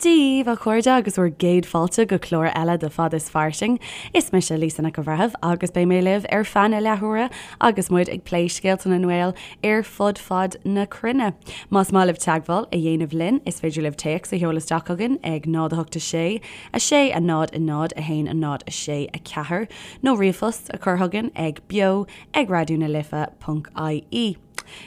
Dia daoibh, a chairde, agus bhur gcéad fáilte go clár eile de Fad is Fairsing. Is mise Lisa Nic an Bhreithimh agus beidh mé libh ar feadh na leathuaire agus muid ag plé scéalta na nGael ar fud fad na cruinne. Más maith libh teagmháil a dhéanamh linn, is féidir libh téacs a sheoladh isteach chugainn ag 0 8 6 6 0 0 1 0 6 4 nó ríomhphost a chur chugainn ag beo ag raidió na life ponc ie.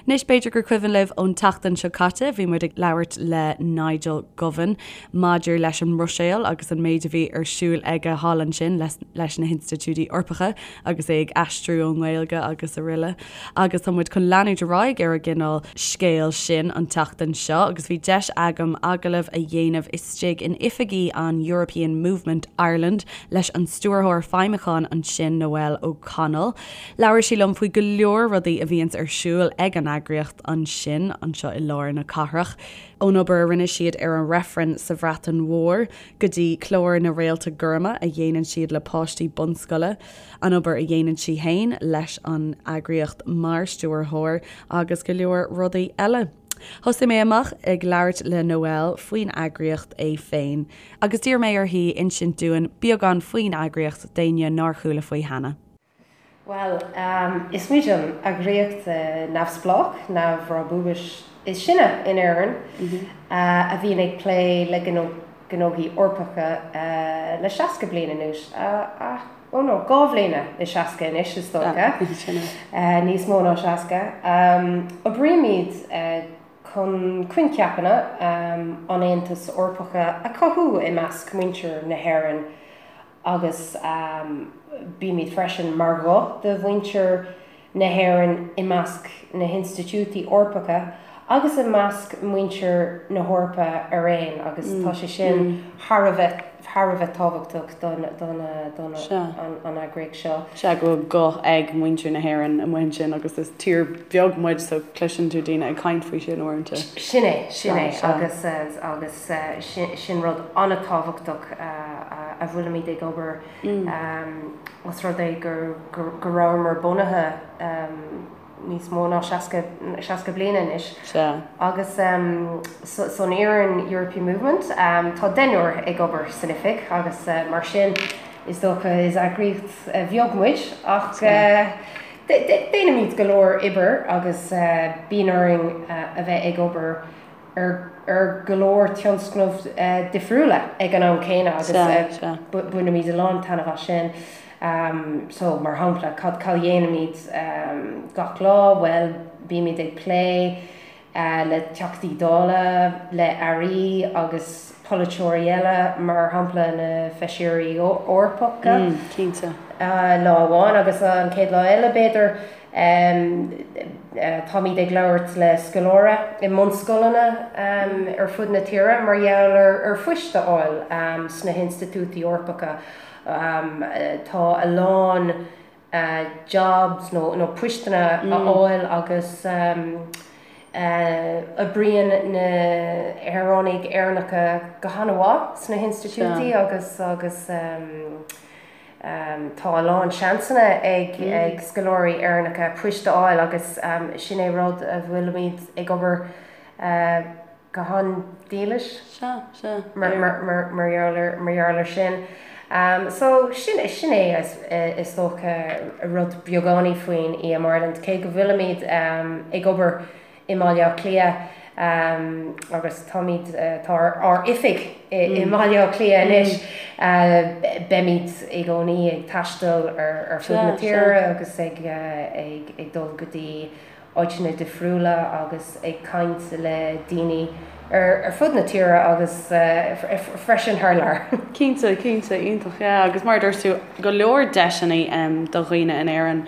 Anois, b'fhéidir gur cuimhin libh ón tseachtain seo caite, bhí muid ag labhairt le Nigel Govan maidir leis an mBruiséil agus an méid a bhí ar siúl aige thall ansin leis na hinstitiúidí Eorpacha agus é ag aistriú ón nGaeilge agus araile. Agus tá muid chun leanúint ar aghaidh ar an gcineál scéil sin an tseachtain seo agus bhí deis agam agallamh a dhéanamh istigh in oifigí an European Movement Ireland leis an Stiúrthóir Feidhmiúcháin ansin, Noelle O'Connell. Labhair sí liom faoi go leor rudaí a bhíonns ar siúl ag an eagraíocht ansin, anseo i lár na cathrach, ón obair a rinne siad ar an reifreann sa Bhreatain Mhór go dtí clár na Réalta Gorma a dhéanann siad le páistí bunscoile, an obair a dhéanann sí fhéin leis an eagraíocht mar stiúrthóir agus go leor rudaí eile. Thosaigh mé amach ag labhairt le Noelle faoin eagraíocht é féin agus d'iarr mé uirthi insint dúinn beagán faoin eagraíocht d'éinne nár chuala faoi cheana. Bhuel, is muid an eagraíocht neamhspleách, neamhbhrabúis is sine in Éirinn a bhíonn ag plé le gnóthaí Eorpacha le 60 bliain anuas. Ó no, 2 bhliana is 60 anois, is dócha. Níos mó ná 60. Oibrímid chun coincheapanna an Aontais Eorpacha a chothú i measc muintir na hÉireann. agus bímid freisin mar ghuth do mhuintir na hÉireann i measc na hinstitiúidí Eorpacha agus i measc muintir na hEorpa araon agus tá sé sin thar a bheith thar a bheith tábhachtach don don don an eagraíocht seo. Sea, go bhfuil guth ag muintir na hÉireann amuigh ansin agus is tír bheag muid so cloiseann tú daoine ag caint faoi sin uaireanta. Sin é, sin é agus agus. Sin rud an-tábhachtach a bhfuilimid ag obair os rud é go rabhamar bunaithe níos mó ná 60 bliain anois. Agus san fhoireann European Movement tá deichniúr ag obair san oifig agus mar sin is dócha is eagraíocht bheag muid ach déanaimid go leor oibre agus bíonn orainn a bheith ag obair ar go leor tionscnamh difriúla ag an am céanna agus bainimid a lán taitneamh as sin. So, mar shampla, cad a dhéanaimid gach lá? Bhuel, bímid ag plé le Teachtaí Dála, le Airí agus polaiteoirí eile, mar shampla na Feisirí Eorpacha. Cinnte. Lá amháin agus an chéad lá eile, b'fhéidir, Táimid ag labhairt le scoláirí i mbunscoileanna ar fud na tíre mar gheall ar phoist a fháil sna hinstitiúidí Eorpacha. Tá a lán jobs nó poisteanna a fháil agus oibríonn na shaoránaigh Éireannacha go han-mhaith sna hinstitiúidí agus agus Tá a lán seansanna ag scoláirí Éireannacha poist a fháil agus sin é rud a bhfuilimid ag obair go han-dílis mar gheall air sin. So sin é is dócha rud beagáinín faoin EM Ireland, cé go bhfuilimid ag obair i mBaile Átha Cliath agus táimid, tá ár oifig i mBaile Átha Cliath anois. Beimid i gcónaí ag taisteal ar fud na tíre agus ag ag dul go dtí áiteanna difriúla agus ag caint le daoine ar fud na tíre agus freisin thar lear. Cinnte, cinnte, iontach, yeah. Agus mar a dúirt tú, go leor deiseanna do dhaoine in Éirinn.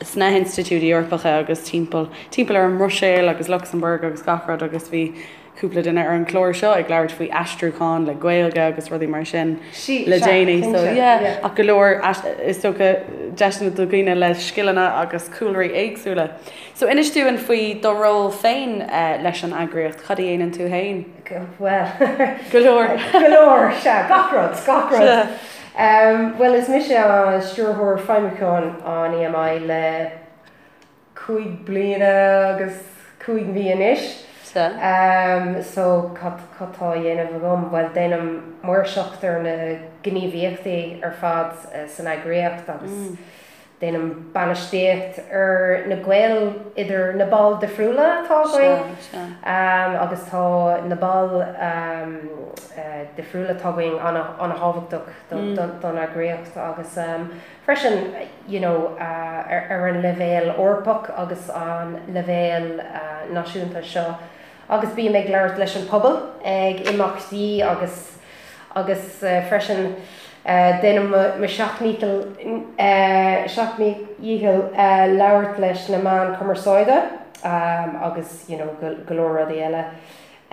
sna hinstitiúidí Eorpacha agus timpeall, timpeall ar an mBruiséil agus Lucsamburg agus gach rud agus bhí cúpla duine ar an chlár seo ag labhairt faoi aistriúchán le Gaeilge agus rudaí mar sin le déanaí so yeah ach go leor is dócha deiseanna do dhaoine le scileanna agus cúlraí éagsúla. So inis dúinn faoi do ról féin leis an eagraíocht, cad a dhéanann tú féin? Bhuel, go leor. Go leor, sea, gach rud, gach rud. Bhuel, is mise Stiúrthóir Feidhmiúcháin an EMI le 5 bliana agus 5 mhí anois. Sea. So cad tá á dhéanamh agam? Bhuel, déanaim maoirseacht ar na gníomhaíochtaí ar fad san eagraíocht agus déanaim bainistíocht ar na gaoil idir na baill difriúla atá againn. Sea, sea. Agus tá na baill difriúla atá againn an-thábhachtach don eagraíocht agus Freisin, you know, ar an leibhéal Eorpach agus an leibhéal náisiúnta seo agus bím ag labhairt leis an pobal ag imeachtaí agus agus freisin déanaim mo sheacht ndícheall seacht ndícheall labhairt leis na meáin cumarsáide agus, you know, go leor rudaí eile.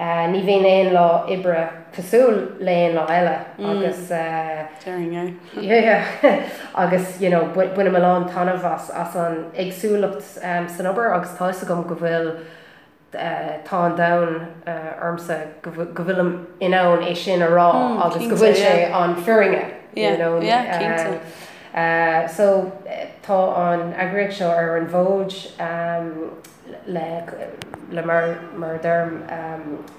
Ní bhíonn aon lá oibre cosúil le aon lá eile agus Déarfainn é. yeah agus you know bainim a lán taitneamh as as an éagsúlacht san obair agus tá fhios agam go bhfuil tá an domhan ormsa go go bhfuilim in ann é sin a rá agus go bhfuil sé an fírinne you know. Yeah, cinnte. So tá an eagraíocht seo ar an bhfód le le mar mar a deirim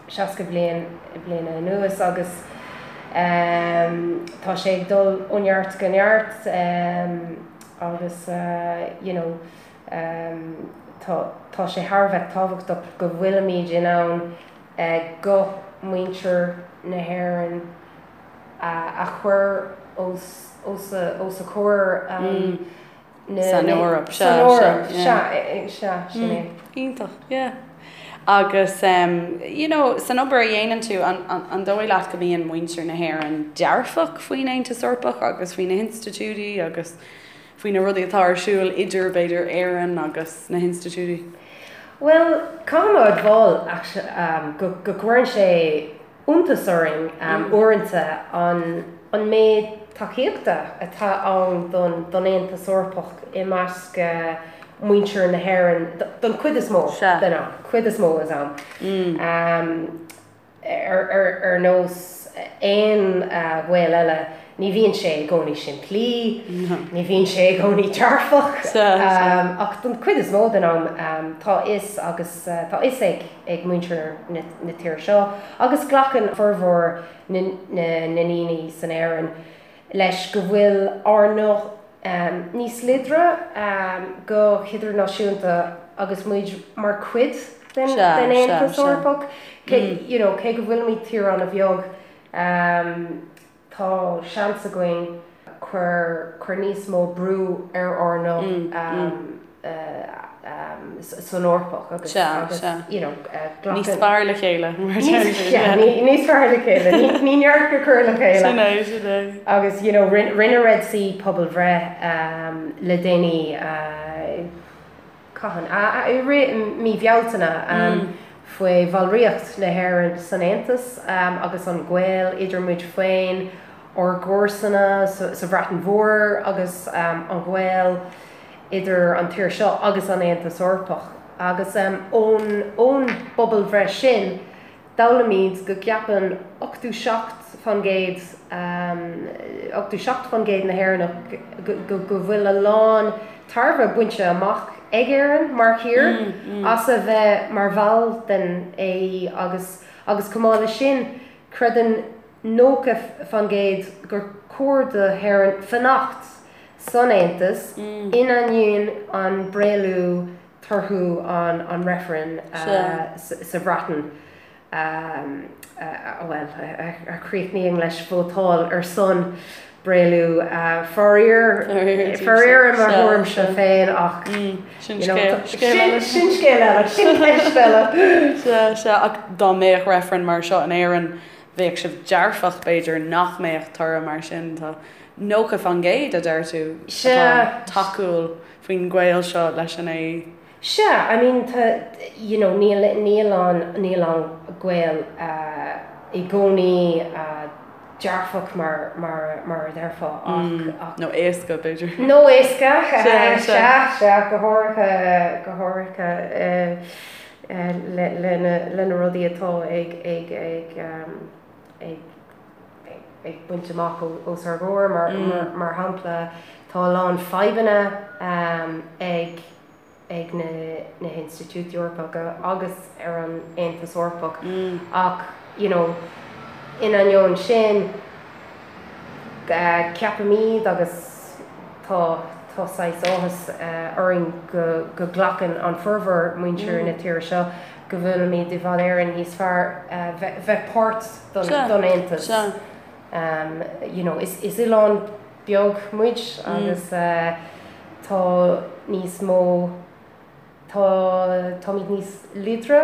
60 bliain bliana anuas agus tá sé ag dul ó neart go neart agus you know tá tá sé thar a bheith tábhachtach go bhfuilimid in ann guth muintir na hÉireann a chur os os a os a comhair. San Eoraip, sea, San Eoraip, sea, sea, sin é. Iontach, yeah. Agus, you know, san obair a dhéanann tú, an dóigh leat go mbíonn muintir na hÉireann dearfach faoin Aontas Eorpach agus faoi na hinstitiúidí agus faoi na rudaí atá ar siúl idir, b'fhéidir, Éirinn agus na hinstitiúidí? Bhuel, caithfidh mé a admháil, go gcuireann sé iontas orainn uaireanta an méid tacaíochta atá ann don Aontas Eorpach i measc muintir na hÉireann don chuid is mó den am, cuid is mó den am. Ar nós aon ghaol eile, ní bhíonn sé i gcónaí simplí, ní bhíonn sé i gcónaí dearfach, ach don chuid is mó den am tá fhios agus tá fhios ag ag muintir na tíre seo agus glacann formhór na ndaoine san Éirinn leis go bhfuil ár nguth níos láidre go hidirnáisiúnta agus muid mar chuid den Aontas Eorpach. You know, cé go bhfuilimid tír an-bheag, Tá seans againn cur cur níos mó brú ar ár nguth san Eorpach agus agus you know glacann. Níos fearr le chéile mar a deir siad. Yeah, níos fearr le chéile. Ní neart go cur le chéile. Sin é, sin é. Agus you know rinne Red C pobalbhreith le déanaí Cathain? I rith mí Bhealtaine faoi bhallraíocht na hÉireann san Aontas agus an gaol idir muid féin, ár gcomharsana sa Bhreatain Mhór agus an gaol idir an tír seo agus an Aontas Eorpach. Agus ón bpobalbhreith sin, D'fhoghlaimíd go gceapann 87%, 87% na hÉireannach go bhfuil a lán tairbhe bainte amach ag Éirinn mar thír as a bheith mar bhall den AE agus agus chomh maith leis sin creideann 90% gur chóir do hÉirinn fanacht san Aontas in ainneoin an bréalú torthaí an reifrinn sa Bhreatain, bhuel, a chríochnaíonn leis vótáil ar son bréalú. Faraor, faraor i mo thuairimse féin ach, you know, sin scéal eile, sin ceist eile. Sea, sea, ach dá mbeadh reifreann mar seo in Éirinn, bheadh sibh dearfach, b'fhéidir, nach mbeadh toradh mar sin. Tá 90%, a deir tú, atá tacúil. faoin ghaol seo leis an AE? Sea, I mean tá, you know, níl, níl an, níl an gaol i gcónaí dearfach mar, mar, mar a déarfá ach, ach. Nó éasca, b'fhéidir. Nó éasca, sea, sea, go háirithe, go háirithe le, le na, le na rudaí atá ag, ag, ag, ag. ag baint amach os ár gcomhair. Mar shampla, tá a lán fadhbanna ag ag na hinstitiúidí Eorpacha agus ar an Aontas Eorpach ach you know in ainneoin sin ceapaimid agus tá tá saghas áthas orainn go go nglacann an formhór muintir na tíre seo go bhfuilimid i bhfad Éireann níos fearr bheith páirt don Aontas. You know is is oileán beag muid agus tá níos mó, tá, táimid níos láidre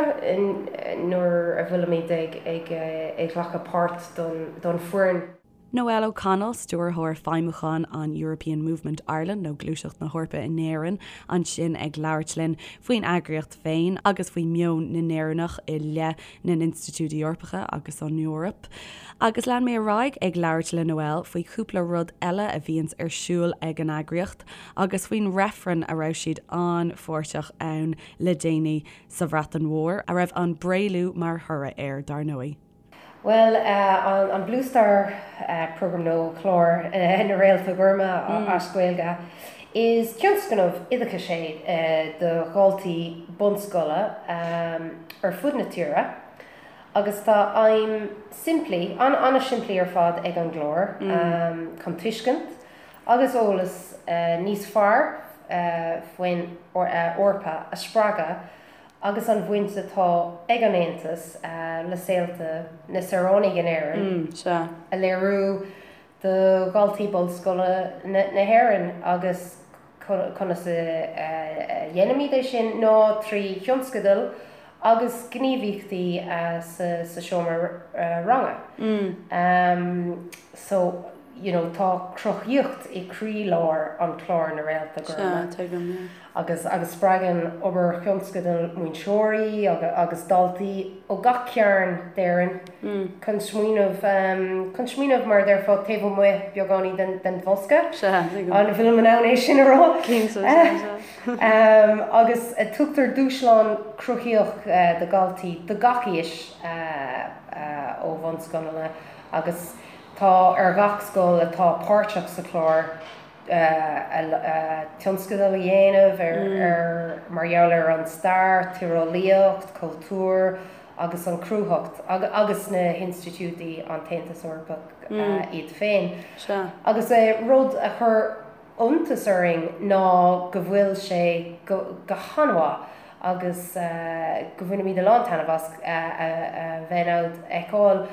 nuair a bhfuilimid ag, ag, ag glacadh páirt don, don foireann. Noelle O'Connell, Stiúrthóir Feidhmiúcháin an European Movement Ireland nó Gluaiseacht na hEorpa in Éirinn ansin ag labhairt linn faoin eagraíocht féin agus faoi mheon na nÉireannach i leith na n-institiúidí Eorpacha agus an Eoraip. Agus lean mé ar aghaidh ag labhairt le Noelle faoi chúpla rud eile a bhíonns ar siúl ag an eagraíocht agus faoin reifreann a raibh siad an-pháirteach ann le déanaí sa Bhreatain Mhór, a raibh an Bréalú mar thoradh air, dar ndóigh. Bhuel, an Blue Star Programme nó Clár na Réalta Goirme as Gaeilge, is tionscnamh oideachais é do dhaltaí bunscoile ar fud na tíre agus tá aidhm simplí, an-simplí ar fad ag an gclár, chun tuiscint agus eolas níos fearr faoin Eoraip a spreagadh agus an bhaint atá ag an Aontas le saolta na saoránaigh in Éirinn a léiriú do dhaltaí bunscoile na hÉireann agus conas a dhéanaimid é sin ná trí thionscadail agus gníomhaíochtaí sa seomra ranga. So, you know, tá cruthaíocht i croílár an chlár na Réalta Goirme. Sea, tuigim, yeah. Agus agus spreagann obair thionscadail múinteoirí agus daltaí ó gach cearn d'Éirinn chun smaoineamh chun smaoineamh mar a déarfá taobh amuigh beagáinín den den bhosca. Sea, tuigim. An bhfuilim in ann é sin a rá? Cinnte, sea, sea. Agus tugtar dúshlán cruthaíoch do dhaltaí de gach aois ó bhunscoileanna agus tá ar gach scoil atá páirteach sa chlár tionscadal a dhéanamh ar mar gheall ar an stair, tíreolaíocht, cultúr agus an chruthaitheacht agus na hinstitiúidí an tAontas Eorpach iad féin. Agus rud a chuir iontas orainn ná go bhfuil sé go han-mhaith agus go bhainimid a lán taitneamh as a bheith in ann fheiceáil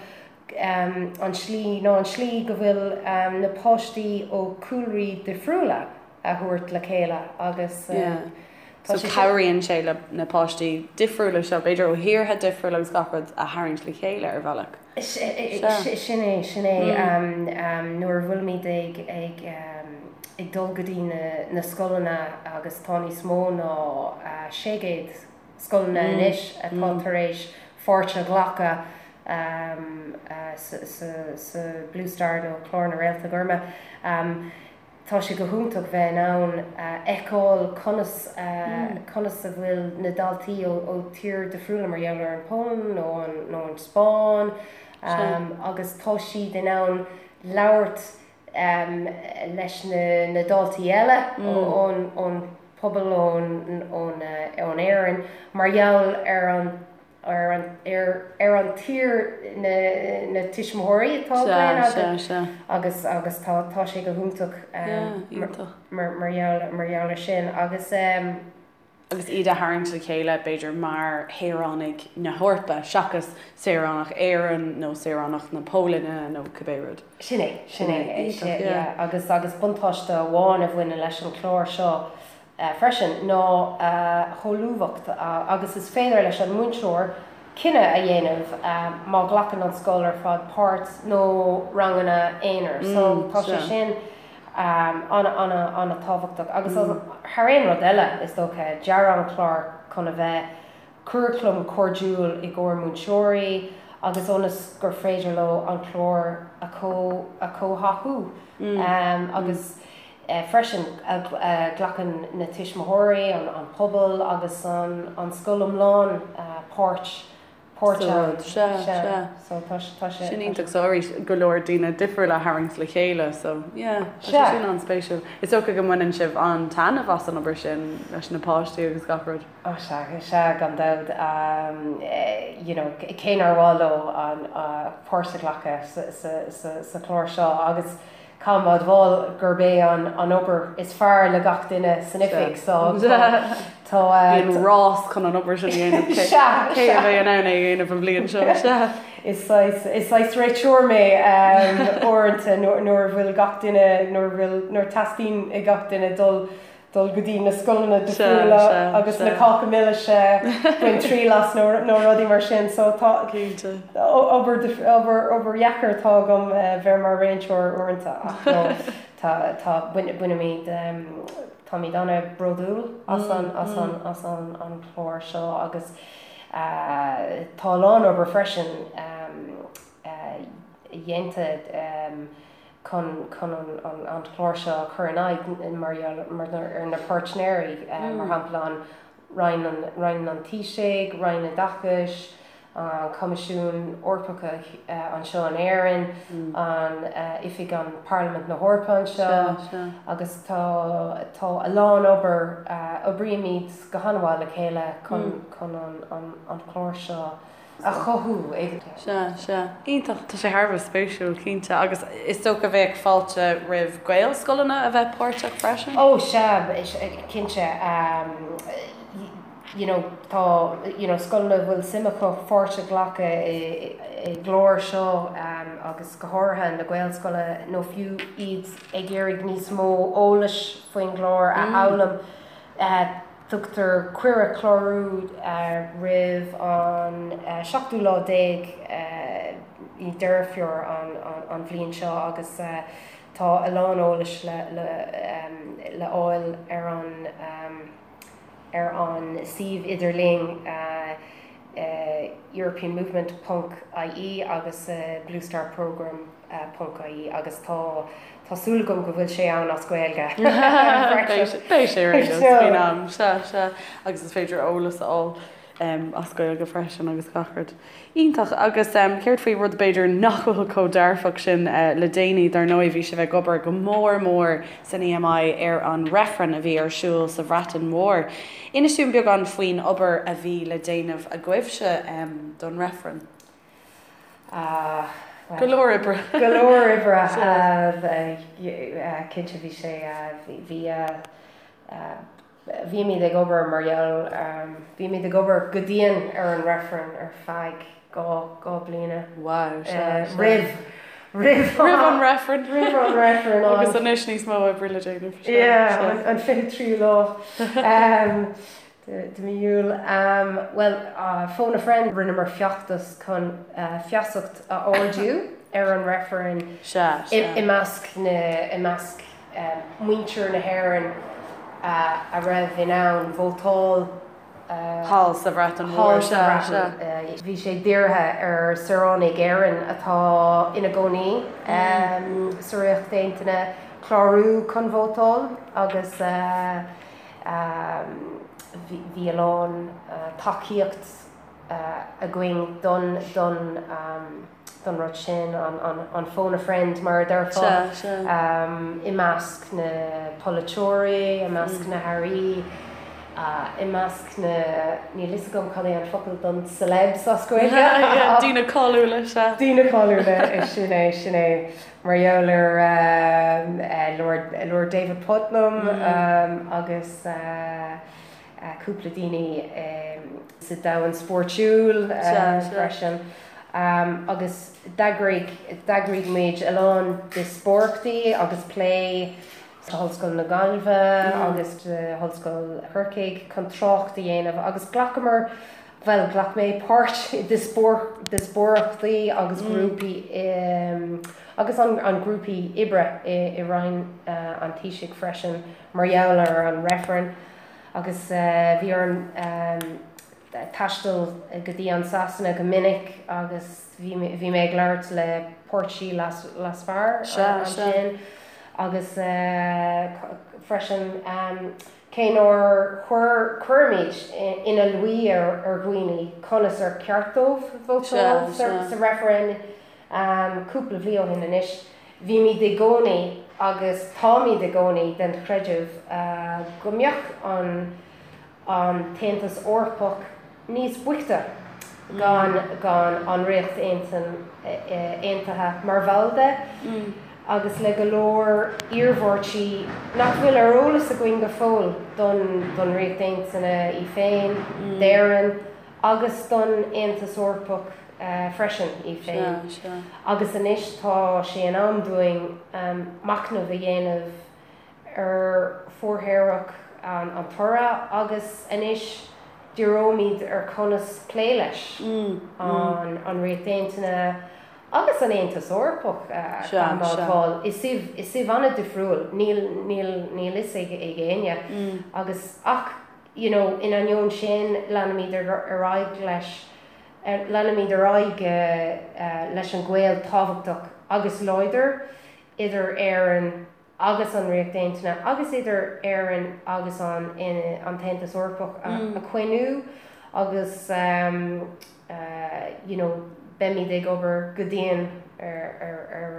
an tslí nó an tslí go bhfuil na páistí ó chúlraí difriúla a thabhairt le chéile agus tá sé. So cabhraíonn sé le na páistí difriúla seo, b'fhéidir ó thíortha difriúla agus gach rud a tharraingt le chéile ar bhealach. Sin é, sin é. Nuair a bhfuilimid ag ag ag dul go dtí na scoileanna agus tá níos mó ná 600 scoileanna anois atá tar éis pháirt a ghlacadh sa Blue Star nó Clár na Réalta Goirme. Tá sé go hiontach bheith in ann fheiceáil conas conas a bhfuil na daltaí ó tír difriúla mar gheall ar an Pholainn nó an nó an Spáinn agus tá siad in ann labhairt leis na daltaí eile ón ón pobal ón ón ón Éirinn mar gheall ar an ar an ar an tír na na tuismitheoirí atá againn Sea, sea. agus agus tá tá sé go hiontach Yeah, iontach. mar mar gheall mar gheall ar sin agus agus iad a tharraingt le chéile b'fhéidir mar shaoránaigh na hEorpa seachas saoránach Éireann nó saoránach na Polainne nó cibé rud. Sin é, sin é, Iontach, yeah. yeah agus agus buntáiste amháin a bhaineann leis an chlár seo freisin ná a sholúbthacht agus is féidir leis an múinteoir cinneadh a dhéanamh má ghlacann an scoil ar fad páirt nó ranganna aonair. So tá sé sin an-an-an-tábhachtach agus thar aon rud eile is dócha dearadh an clár chun a bheith curaclam cairdiúil i gcomhair múinteoirí agus ionas gur féidir leo an clár a chomhtháthú agus freisin glacann na tuismitheoirí, an pobal agus an scoil iomlán páirt. Páirt ann. Sea, sea. So tá tá sé. Sin iontach. So arís, go leor daoine difriúla a tharraingt le chéile. So yeah, tá sé sin an-spéisiúil. Is dócha go mbaineann sibh an-taitneamh as an obair sin leis na páistí agus gach rud. Ó sea, sea, gan dabht. You know, cé nár mhaith leo an páirt a ghlacadh sa sa sa sa chlár seo agus Caithfidh mé a admháil gurb é an obair is fearr le gach duine san oifig so tá. Bíonn rás chun an obair sin a dhéanamh, cé a bheidh in ann é a dhéanamh an bhliain seo? Sea. Is saghas réiteoir mé uaireanta nuair a bhfuil gach duine, nuair a bhfuil, nuair teastaíonn ag gach duine dul dul go dtí na scoileanna difriúla agus na cáca milis a baint triail as nó nó rudaí mar sin so tá obair obair obair dheacair atá agam bheith mar réiteoir uaireanta ach no tá tá bainimid táimid an-bhródúil as an as an as an an chlár seo agus tá a lán obair freisin dhéanta chun chun an an clár seo a chur in aghaidh mar gheall ar na páirtnéirí, mar shampla an Roinn an Roinn an Taoisigh, Roinn Oideachais, an Coimisiún Eorpach anseo in Éirinn, an Oifig an Parlaimint na hEorpa anseo agus tá tá a lán obair, oibrímid go han-mhaith le chéile chun chun an an clár seo a chothú. Sea, sea. Iontach. Tá sé thar a bheith spéisiúil, cinnte. Agus is dócha bheadh fáilte roimh Gaelscoileanna a bheith páirteach freisin? Ó, sea, cinnte. You know, tá, you know, scoileanna a bhfuil suim acu pháirt a ghlacadh i gclár seo agus go háirithe na Gaelscoileanna nó fiú iad ag iarraidh níos mó eolais faoin gclár a fhoghlaim. Tugtar cuireadh clárú roimh an seachtú lá déag Deireadh Fómhair an bhliain seo agus tá a lán eolais le fháil ar an ar an suíomh idirlín europeanmovement ponc ie agus Blue Star Programme ponc ie agus tá tá súil agam go bhfuil sé ann as Gaeilge freisin. Beidh sé ar aon nós faoin am, sea, sea, agus is féidir eolas a fháil as Gaeilge freisin agus gach rud. Iontach. Agus céard faoi rud b'fhéidir nach bhfuil chomh dearfach sin le déanaí, dar ndóigh bhí sibh ag obair go mór mór san EMI ar an reifreann a bhí ar siúl sa Bhreatain Mhór. Inis dúinn beagán faoin obair a bhí le déanamh agaibhse don reifreann. Go leor oibre. Go leor oibre. Cinnte bhí sé, bhí, bhímid ag obair mar gheall, bhímid ag obair go dian ar an reifreann ar feadh 2 bliana. Wow, sea, sea. Roimh, roimh Roimh an reifreann. Roimh an reifreann. Agus anois níos mó oibre le déanamh. Yeah, an 23ú lá. De mí Iúil. Bhuel, Phone a Friend, rinneamar feachtas chun feasacht a ardú ar an reifreann i measc na, i measc muintir na hÉireann a raibh in ann vótáil thall sa Bhreatain Mhór. Thall sa Bhreatain. Bhí sé dírithe ar saoránaigh Éireann atá ina gcónaí sa Ríocht Aontaithe clárú chun vótáil agus Bhí a lán tacaíocht againn don don don rud sin, an phone a friend mar a déarfá, i measc na polaiteoirí, i measc na hairí, i measc na, níl fhios agam cad é an focal don celebs as Gaeilge. Daoine cáiliúla, sea. Daoine cáiliúla, sin é, sin é. Mar gheall ar Lord David Puttnam agus cúpla daoine sa domhan spóirtiúil freisin. Agus d'eagraigh d'eagraigh muid a lán díospóireachtaí agus plé sa Ollscoil na Gaillimhe agus d'Ollscoil Chorcaigh chun trácht a dhéanamh agus ghlacamar Bhuel, ghlac mé páirt i díospóireachtaí agus grúpaí agus an grúpaí oibre i Roinn an Taoisigh freisin mar gheall ar an reifreann agus bhí orm taisteal go dtí an Sasana go minic agus bhí bhí mé ag labhairt le páirtí leasmhar ansin agus freisin. Cé nár chuir cuirimid ina luí ar dhaoine conas ar cheart dóibh vótáil sa reifreann cúpla bliain ó shin anois, bhímid i gcónaí agus táimid i gcónaí den chreideamh go mbeadh an an tAontas Eorpach níos boichte gan gan an Ríocht Aontaithe mar bhall de, agus le go leor iarmhairtí nach bhfuil ar eolas againn go fóill don don Ríocht Aontaithe í féin, d'Éirinn agus don Aontas Eorpach freisin í féin. Agus anois tá sé in am dúinn machnamh a dhéanamh ar mhórthaobhach an toradh agus anois díreoimid ar conas plé leis, an Ríocht Aontaithe agus an Aontas Eorpach a mhátáil i suíomh an-difriúil, níl níl níl fhios ag éinne agus ach you know in ainneoin sin leanfaimid ar aghaidh leis leanfaimid ar aghaidh leis an gaol tábhachtach agus láidir idir Éirinn agus an Ríocht Aontaithe agus idir Éirinn agus an an tAontas Eorpach a choinniú agus you know beimid ag obair go dian ar ar ar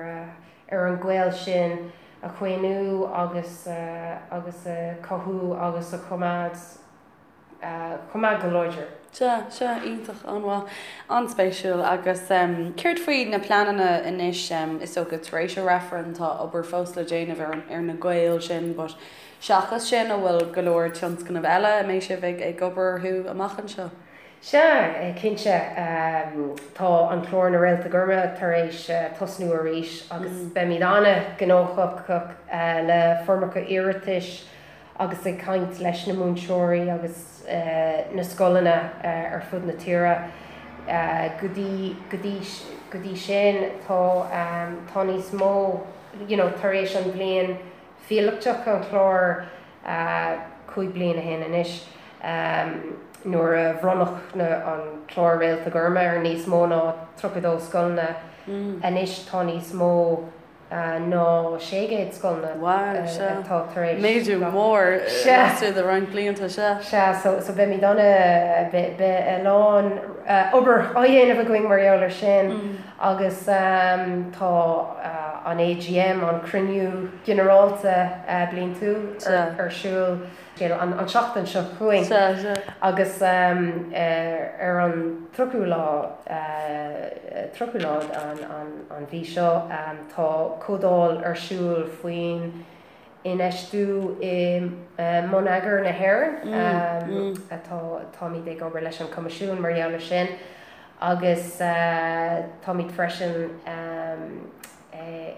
ar an gaol sin a choinniú agus agus a chothú agus a choimeád. choimeád go láidir. Sea, sea, iontach, an-mhaith, an-spéisiúil. Agus céard faoi na pleananna anois, is dócha tar éis an reifrinn tá obair fós le déanamh ar ar na gaoil sin but seachas sin an bhfuil go leor tionscnamh eile a mbeidh sibh ag ag obair orthu amach anseo? Sea, cinnte. Tá an clár Na Réalta Gorma tar éis tosnú arís agus beimid an-ghnóthach le foirmeacha iarratais agus ag caint leis na múinteoirí agus na scoileanna ar fud na tíre. Go dtí, go dtí, go dtí sin tá, tá níos mó, you know, tar éis an bhliain phíolótach an chláir 5 bliana ó shin anois, nuair a bhronnadh na, an clár Réalta Gorma ar níos mó ná 32 scoileanna, anois tá níos mó ná 600 scoileanna atá tar éis. Méadú mór laistigh de roinnt blianta, sea. Sea, so so beimid ana, beidh a lán obair á dhéanamh againn mar gheall ar sin agus tá an AGM, an Cruinniú Ginearálta Bliantúil ar siúl. An tseachtain seo chugainn agus ar an 30ú lá, 30ú lá an mhí seo, tá comhdháil ar siúl faoin infheistiú i mbonneagar na hÉireann. Atá, táimid ag obair leis an Coimisiún mar gheall ar sin agus táimid freisin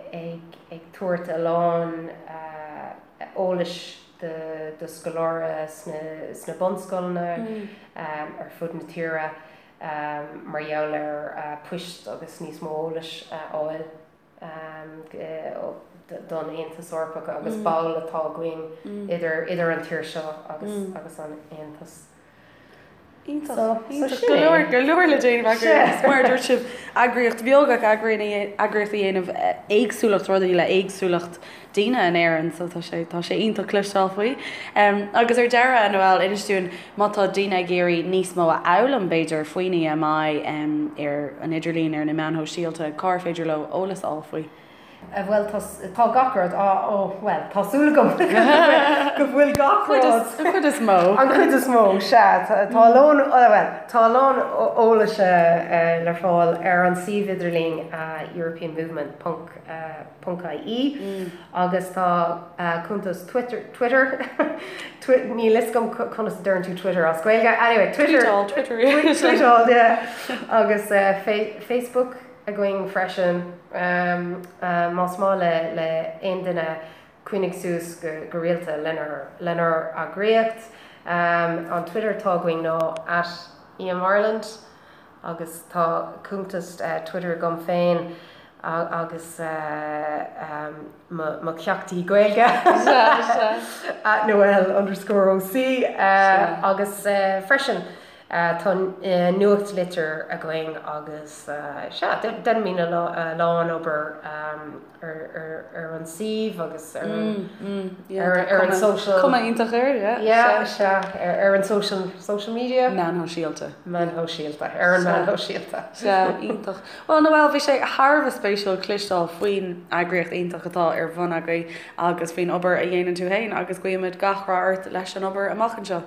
ag tabhairt a lán eolais do scoláirí sna bunscoileanna ar fud na tíre mar gheall ar poist agus níos mó eolais a fháil don Aontas Eorpach agus ball atá againn idir an tír seo agus an Aontas. Iontach. Iontach. Go leor, go leor le déanamh agaibh. Agus mar a dúirt sibh, eagraíocht bheag ach eagraíocht a dhéanamh éagsúlacht rudaí le éagsúlacht daoine in Éirinn so tá sé, tá sé iontach cloisteáil faoi. Agus ar deireadh, a Noelle, inis dúinn má tá daoine ag iarraidh níos mó a fhoghlaim b'fhéidir faoin EMI ar an idirlíon, ar na meáin shóisialta, cár féidir leo eolas a fháil faoi? Bhuel, tá, tá gach rud á, ó, bhuel, tá súil agam go bhfuil gach rud. An chuid is mó. An chuid is mó, sea. Tá a lán, bhuel, tá a lán eolais le fáil ar an suíomh idirlín europeanmovement ponc ponc ie agus tá cuntas Twitter, Twitter, níl fhios agam conas a deireann tú Twitter as Gaeilge, anyway, Twitter. Tweetáil, Twitter. Tweetáil, yeah. Agus Facebook. againn freisin. Más maith le aon duine coinnigh suas go rialta lenár eagraíocht, an Twitter atá againn ná at EMIreland agus tá cuntas Twitter agam féin agus mo cheachtaí Gaeilge at Noelle underscore OC agus freisin. Tá nuachtlitir againn agus sea, déanaimid a lán obair ar an suíomh agus ar an social. Cuma iontach air, yeah. Yeah, sea, ar an social, social media? Meáin shóisialta. Meáin shóisialta, ar an meáin shóisialta. Sea, iontach. Bhuel, Noelle, bhí sé thar a bheith spéisiúil cloisteáil faoin eagraíocht iontach atá ar bhun agaibh agus faoin obair a dhéanann tú féin agus guímid gach rath ort leis an obair amach anseo.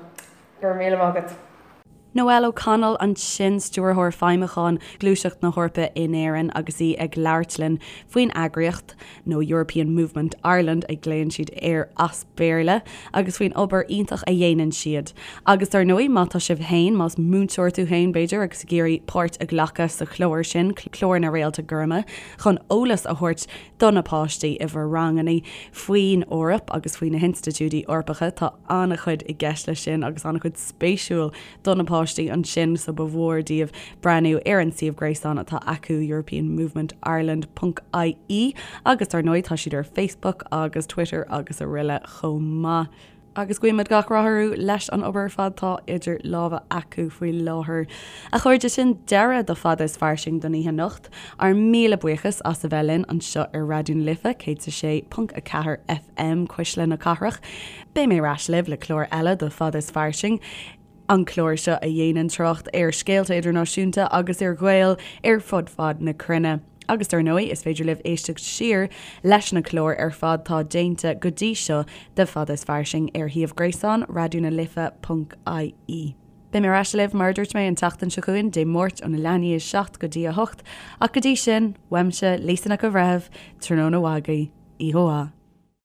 Go raibh míle maith agat. Noelle O'Connell ansin, Stiúrthóir Feidhmiúcháin Ghluaiseacht na hEorpa in Éirinn agus í ag labhairt linn faoin eagraíocht, nó European Movement Ireland a ghlaonn siad air as Béarla, agus faoin obair iontach a dhéanann siad. Agus dar ndóigh, má tá sibh féin, más múinteoir tú féin b'fhéidir agus ag iarraidh páirt a ghlacadh sa chlár sin, Clár na Réalta Gorma, chun eolas a thabhairt do na páistí i bhur ranganna faoin Eoraip agus faoi na hinstitiúidí Eorpacha. Tá an-chuid i gceist leis sin agus an-chuid spéisiúil do na páistí ansin so ba mhór daoibh breathnú ar an suíomh gréasáin atá acu europeanmovementireland ponc ie agus dar ndóigh tá siad ar Facebook agus Twitter agus araile chomh maith. Agus guímid gach rath orthu leis an obair ar fad atá idir lámha acu faoi láthair. A chairde, sin deireadh do Fada is Fairsing don oíche anocht. Ár míle buíochas as a bheith linn anseo ar Raidió na Life 106.4 FM, Cuisle na Cathrach. Beidh mé ar ais libh le clár eile de Fada is Fairsing, an clár seo a dhéanann trácht ar scéalta idirnáisiúnta agus ar Ghaeil ar fud fad na cruinne. Agus dar ndóigh, is féidir libh éisteacht siar leis na cláir ar fad tá déanta go dtí seo de Fada is Fairsing ar shuíomh gréasáin Raidió na Life ponc ie. Beidh mé ar ais libh, mar a dúirt mé, an tseachtain seo chugainn, Dé Máirt óna leath i ndiaidh a 7 go dtí a 8, ach go dtí sin, uaimse, Lisa Nic an Bhreithimh, tráthnóna mhaith agaibh, oíche mhaith.